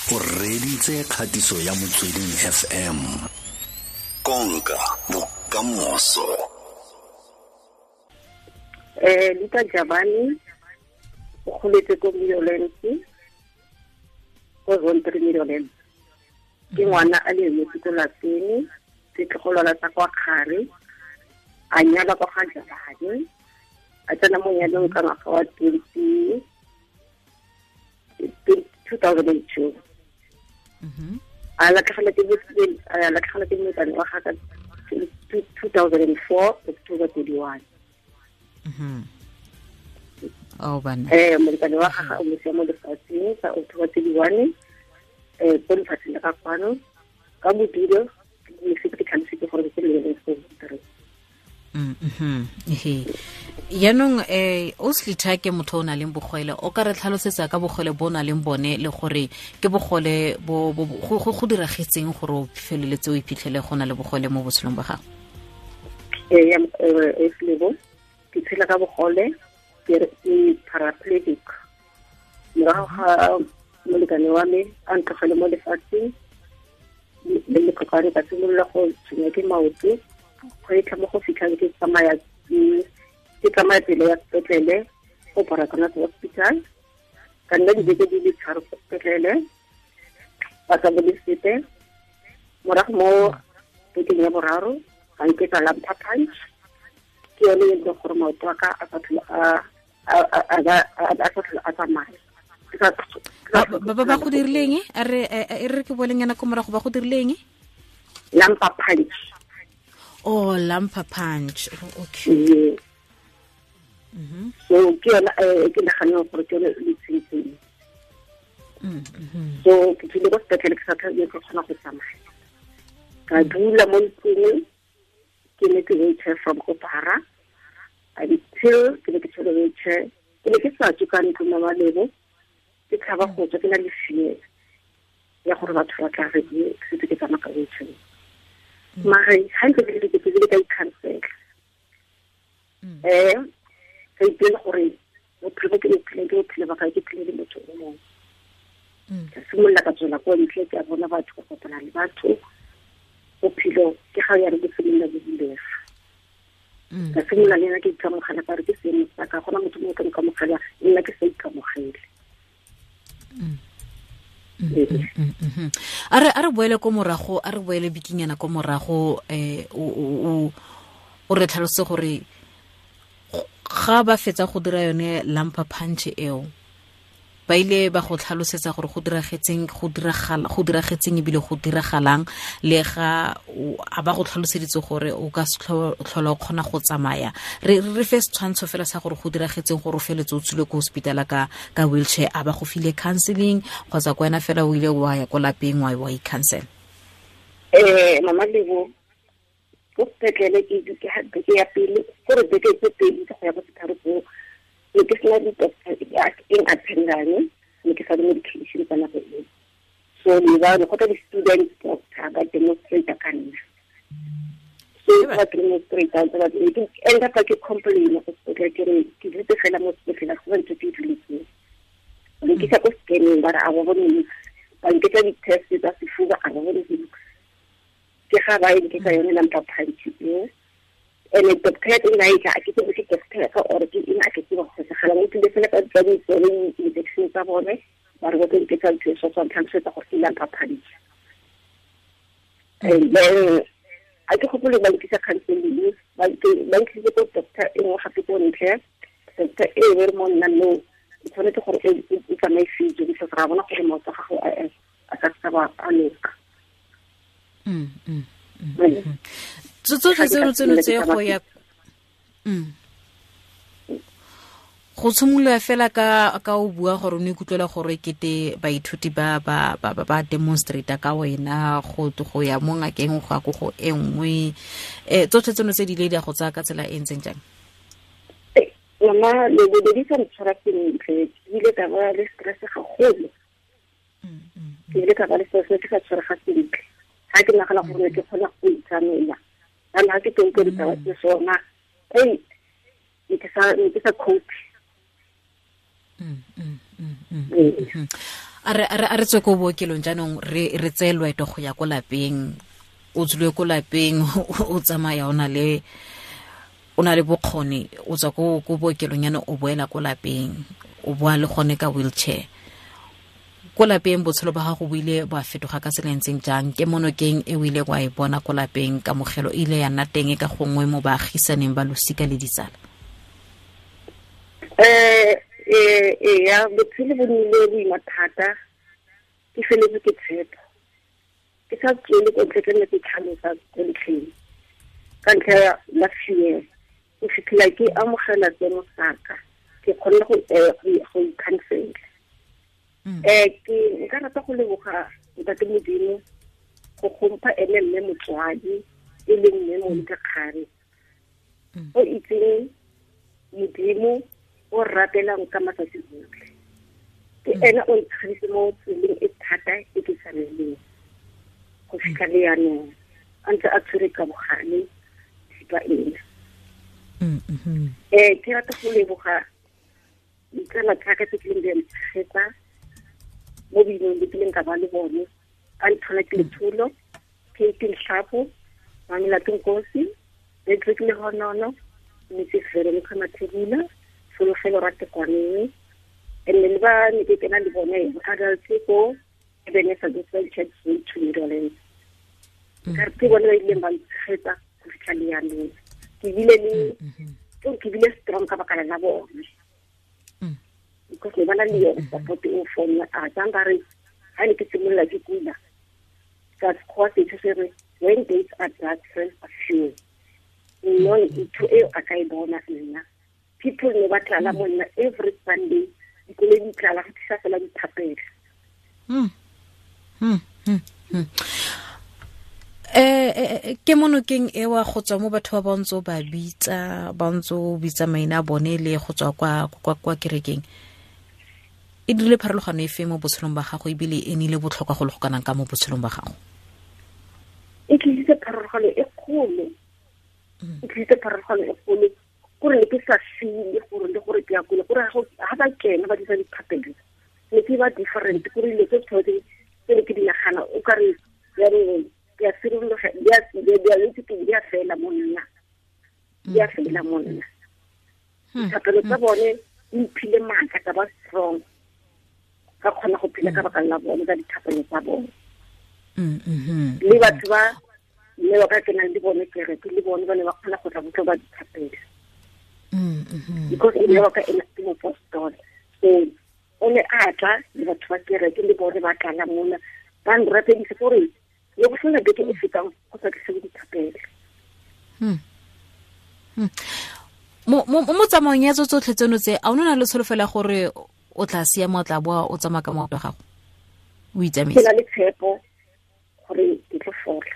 O reditse kgatiso ya Motsweding FM. Konka bokamoso. Luka Jabane o goletse ko Meadowlands, ko Zone 3 Meadowlands. Ke ngwana a le emetse ko lapeng, setlogolwana sa kwa Kgare, a nyalwa kwa ga Jabane, a tsena mo nyalong ka ngwaga wa 2002. A latlhegelwa ke molekane wa gagwe ka 2004, October 31. Oh, bana. Molekane wa gagwe o mo sia mo lefatsheng ka October 31, ko lefatsheng la ka kwano, ka bodulo, ke se ke tlhalositse gore ke le go three. Yaanong o Slitha ke motho o na leng bogole, o ka re tlhalosetsa ka bogole bo o na leng bone le gore ke bogole bo go diragetseng gore o feleletse o iphitlhele go na le bogole mo botshelong ba gago? Ee, ke tshela ka bogole, ke paraplegic. Morago ga molekane wa me a ntlogele mo lefatsheng, le letlokwane ka simolola go tshwenya ke maoto, go e mo go fitlhang ke tsamaya tsela ya sepetlele go Baragwanath Hospital. Ka nna dibeke di le tharo ko sepetlele, ba sa bone sepe. Morago mo bekeng ya boraro ga nketsa lumbar punch, ke yone e leng gore maoto a ka a sa tlhole a tsamaya. Ba go dirileng? A re ke boleng yana ko morago, ba go dirileng? Lumbar punch. Oh, lumbar punch. Okay. Yeah. So ke yona ke naganne gore ke yone le tshentsheng. So ke tsile ko sepetlele ke sa tlhole ke kgona go tsamaya. Ka dula mo ntlong, ke ne ke wheelchair from Opara until ke ne ke tshwere wheelchair. Ke ne ke sa tswe ka ntlo mama Lebo, ke tshaba go tswa, ke na le fear ya gore batho ba tla re ke setse ke tsamaya ka wheelchair. Mare ga ntse ke le ke tsile ka ikhansela. Ka ipela gore bophelo ke bophelo, ke bophelo ba ka, ke phele le motho o mongwe. Ka simolola ka tswela ko ntle, ke a bona batho, ka kopana le batho. Bophelo ke ga ya re bo simolola bo bulega. Ka simolola le nna ke ikamogela, ka re ke seemo sa ka, gona motho mongwe ka nkamogela, nna ke sa ikamogele. A re boele ko morago, a re boele bikinyana ko morago, o re tlhalose gore ga ba fetsa go dira yone lumbar punch eo, ba ile ba go tlhalosetsa gore go diragetseng, go diragetseng ebile go diragalang, le ga a ba go tlhaloseditse gore o ka se tlhola o kgona go tsamaya. Re fe setshwantsho fela sa gore go diragetseng gore o feletse o tswile ko hospital ka wheelchair, a ba go file counseling kgotsa ko wena fela o ile wa ya ko lapeng wa i-counsel? Mama Lebo, ko sepetlele ke beke ya pele, gore beke tse pedi go ya ko setharo tseo, ne ke sena di-doctor eng attendang, ne ke sa le medication ka nako eo. So ne ba go tla di-student doctor ba demonstrate ka nna. So ba demonstrate ba ke end up ke complain go sepetlele, ke re ke dutse fela mo sepetlele, go ntse ke duletseng. Ne ke sa ko scanning, ba re a ba bone niks, ba nketsa di-test tsa sefuba, a ba bone niks. Ke ga ba e ka yone lumbar punch eo. Ene doctor ya teng a e tla, ke tsebe ke doctor ka or ke eng, a ke tsebe go segala mo tlile fela ka tsa di-injection tsa bone, ba re ba tlo nketsa ntho e so tswang tlhalosetsa gore ke lumbar punch. And then a ke gopole ba nkisa counseling, ba nkisitse ko doctor e nngwe gape ko ntle. Doctor e be re mo nna no, o tshwanetse gore o tsamaye physio, because ra bona gore maoto a gago a ka se ba a loka. Tsotlhe tseno tse go ya go tshimolola fela ka o bua gore o ne ikutlwela gore kete baithuti ba ba ba ba demonstrate ka wena go ya mo ngakeng go ya ko go e nngwe, tsotlhe tseno tse di ile di a go tsaya ka tsela e ntseng jang? Mama Lebo, di sa ntshwara sentle, ke ile ka ba le stress gagolo. Ke ile ka ba le stress, ke sa tshwarega sentle. Ga ke nagana gore ke kgona go itsamela, kana ga ke teng ke ditaba tse sona, ke sa cope. A re tswe ko bookelong jaanong re tseye loeto go ya ko lapeng. O tswile ko lapeng o tsamaya o na le bokgoni, o tswa ko bookelong yana o boela ko lapeng, o boa le gone ka wheelchair. Ko lapeng botshelo ba gago bo ile ba fetoga ka tsela e ntseng jang? Ke monokeng e o ile wa e bona ko lapeng, kamogelo e ile ya nna teng ka gongwe mo baagisaneng ba losika le ditsala? Ya botshelo bo nnile boima thata, ke feletse ke tshepo. Ke sa tswele ko ntle, ke nne ke tlhalosa ko ntlheng ka ntlha ya fear. Go fitlhela ke amogela tseno saka, ke kgonne go ikhansela. Ke nka rata go leboga Ntate Modimo go gompha ene mme motswadi e leng mme Monica Kgare, o itseng Modimo o rapelang ka matsatsi otlhe. Ke ene o ntshegeditse mo tseleng e thata e ke sa releng go fitlha le yanong, a ntse a tshwere ka bogale thipa ena. Ke rata go leboga ditsala tsaka tse kileng di a ntshegetsa mo boimeng bo kileng ka ba le bone. A nthola ke Letsholo, Kate Nhlapo, Mamelato Nkosi, Patrick Lehonono, Mrs. Veronica Mathebula, Solofelo Ratekwaneng, and then ba ne ke kena le bone adults ko Ebenezer Gospel Church to Netherlands. Ka ke bone ba ileng ba ntshegetsa go fitlha le yanong. Ke bile le ke bile strong ka baka la bone. Because ne ba na le yone support o for nna. A tsang ba re ha ne ke simolola ke kula ka sekgowa setho se re when days are dark, friends are few. No, ntho eo a ka e bona nna. People ne ba tlala mo nna every Sunday, dikoloi di tlala go tlisa fela dithapelo. Ke monokeng ewa go tswa mo batho ba ntse ba bitsa, ba ntse bitsa maina a bone le go tswa kwa kerekeng. E dirile pharologano efe mo botshelong ba gago, ebile e nnile botlhokwa go le go kanang ka mo botshelong ba gago? E tlisitse pharologano e kgolo. E tlisitse pharologano e kgolo gore ne ke sa feel gore le gore ke ya kule, gore ha ba kena ba dira dithapelo ne ke ba different, gore dilo tse tshwanetse tse ne ke di nagana o ka re jaanong ke a sirologa, di a fela mo nna, di a fela mo nna. Dithapelo tsa bone di mphile maatla, ka ba strong, ka kgona go phela ka baka la bone, ka dithapelo tsa bone. Le batho ba mme ba ka kenang le bone kereke le bone ba ne ba kgona go tla botlo ba dithapelo. Because e ne ba ka ena ke mopostola, so o ne a tla le batho ba kereke le bone ba tlala mona ba nrapedise gore le go sena beke e fetang go sa tlise dithapelo. Mo tsamaong ya tsotlhe tseno tse, a o na le tsholofelo ya gore o tla siama, o tla boa o tsamaya ka maoto a gago, o itsamaisa? Ke na le tshepo gore ke tlo fola.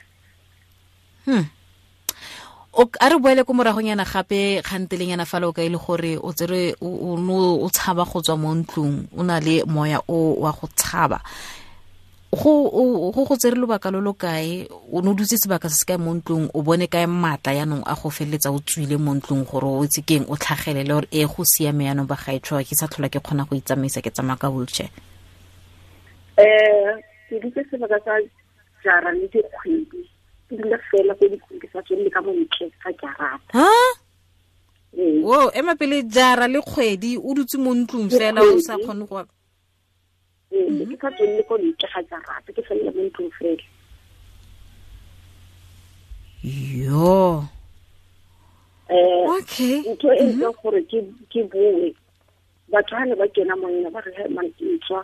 A re boele ko moragonyana gape kgantelenyana fale o ka ile gore o tsere o tshaba go tswa mo ntlong, o na le moya o wa go tshaba. Go tsere lobaka lo lo kae? O ne o dutse sebaka se se kae mo ntlong? O bone kae maatla yanong a go feleletsa o tswile mo ntlong gore o itse keng, o tlhagelele gore e go siame yanong ba gaetsho, ke sa tlhola ke kgona go itsamaisa, ke tsamaya ka wheelchair? Ke dutse sebaka sa jara le dikgwedi, ke dula fela ko ditlong, ke sa tswelele ka mo ntle ga jarata. Wo ema pele, jara le kgwedi o dutse mo ntlong fela o sa kgone go Ke sa tswelele ko ntle ga jarata, ke felela mo ntlong fela. Yo. Okay. Ntho e ntseng gore ke boe, batho ha ne ba kena mo nna ba re he man ke tswa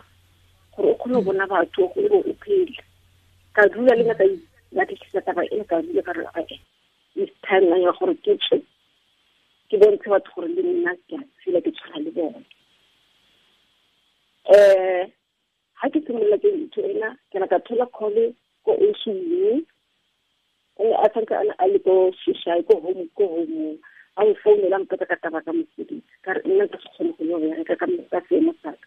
gore o kgone go bona batho gore o phele. Ka dula le nna ka batlisisa taba e, ka dula ka re it's time ya gore ke tswe, ke bontshe batho gore le nna ke a tshela, ke tshwana le bone. Ha ke simolola ke ntho ena, ke na ka thola call ko OCU, o ne a santse a le ko Shishai, ko home, ko home. A nfounela a mpotsa ka taba ka mosebetsi, ka re nna nka se kgone go yo bereka ka seemo sa ka.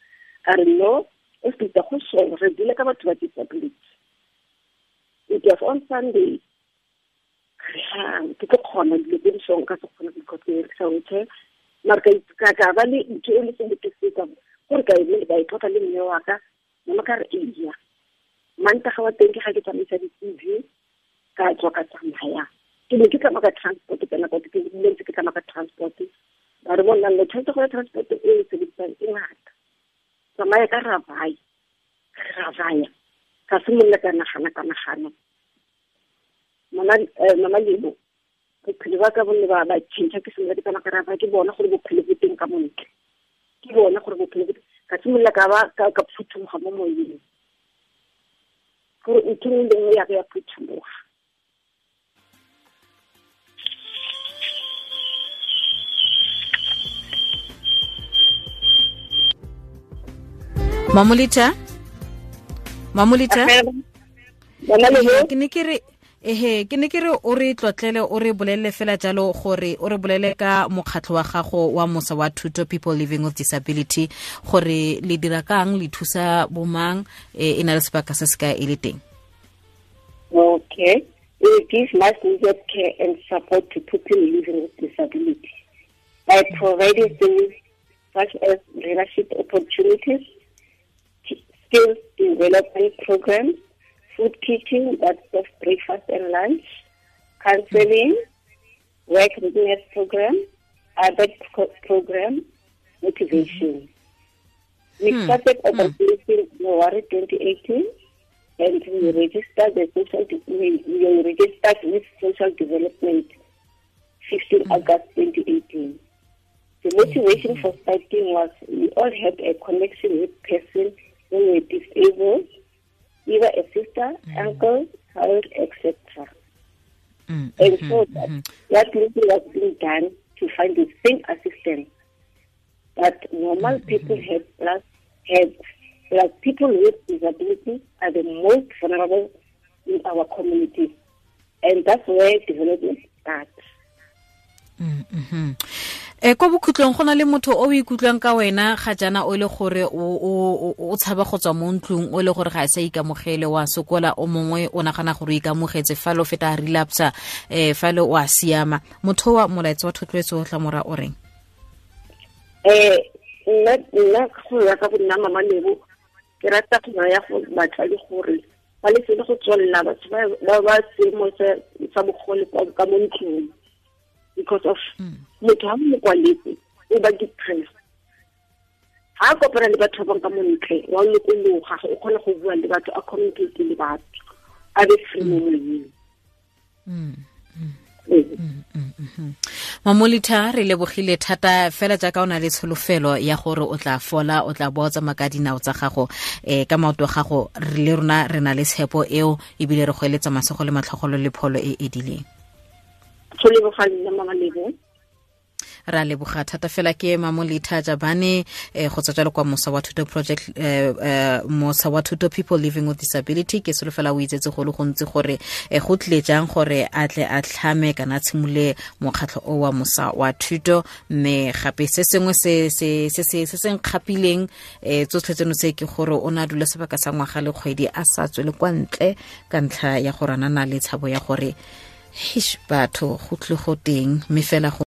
A re no, o feta go sheba, re dula ka batho ba disability. It was on Sunday. Ke tlo kgona dilo tse di song ka se kgone go ikotlela wheelchair. Mara ka ba le ntho e le sengwe ke se ka gore ka e ka e tlotla le mme wa ka, Mama ka re eya. Mantaga wa teng ke ga ke tsamaisa di-CV ka tswa ka tsamaya. Ke ne ke tsamaya ka transport ka nako ke ntse ke tsamaya ka transport. Ba re bona le tshwanetse go ya transport e e sebedisang e ngata. Tsamaya ka ravaya. Ravaya. Ka simolola ka nagana. Mama Lebo, bophelo ba ka bo ne ba change ke simolola ke tsamaya ka ravaya ke bona gore bophelo bo teng ka montle. Ke bona gore bophelo bo ka simolola ka ba ka phuthumoga mo moyeng. Gore ntho nngwe le nngwe ya ka ya phuthumoga. Mamolita ke ne ke re ke ne ke re o re tlotlele o re bolelle fela jalo gore o re bolele ka mokgatlho wa gago wa Mosa wa Thuto People Living with Disability gore le dira kang le thusa bomang e na le sebaka se se ka e le teng. Okay. We give much needed care and support to people living with disability by providing things such as leadership opportunities, skills development programs, food teaching, that's of breakfast and lunch, counseling, work readiness program, other program, motivation. We started operating in January 2018, and we registered we registered with Social Development 15 August 2018. The motivation for starting was we all had a connection with person who were disabled, either a sister, uncle, child, etc. And so that little was being done to find the same assistance that normal people had, plus people with disabilities are the most vulnerable in our community. And that's where development starts. Kwa bokhutlong go na le motho o ikutlwang ka wena ga jana o le gore o tshaba go tswa mo ntlong o le gore ga a sa ikamogele wa sokola o mongwe o nagana gore o ikamogetse fa lo feta relapse fa le o a siama motho wa molaetsa wa thotloetso o tla mora o reng? Nna go ya ka bonna Mama Lebo ke rata go ya go batsadi gore ba lese go tswelela batho ba seemo sa bogole ka mo ntlong. Because of motho ha mo kwaletse o ba depressed. Ha kopana le batho ba ka mo ntle wa lokologa o kgona go bua le batho a communicate le batho a be free mo moyeng. Mamolita re lebogile thata fela jaaka o na le tsholofelo ya gore o tla fola o tla boa tsamaya ka dinao tsa gago ka maoto a gago re le rona re na le tshepo eo ebile re go eletsa masego le matlhogolo le pholo e edileng. Ra leboga thata fela ke Mamolita Jabane go tswa jalo kwa Mosa wa Thuto Project Mosa wa Thuto People Living with Disability. Ke solofela o itsetse go le gontsi gore go tlile jang gore a tle a tlhame kana tshimole mokgatlho o wa Mosa wa Thuto mme gape se sengwe se se se se se nkgapileng tsotlhe tseno se ke gore o na dula sebaka sa ngwaga le kgwedi a sa tswele kwa ntle ka ntlha ya gore a na le tshabo ya gore hish batho go tle go teng mme fela go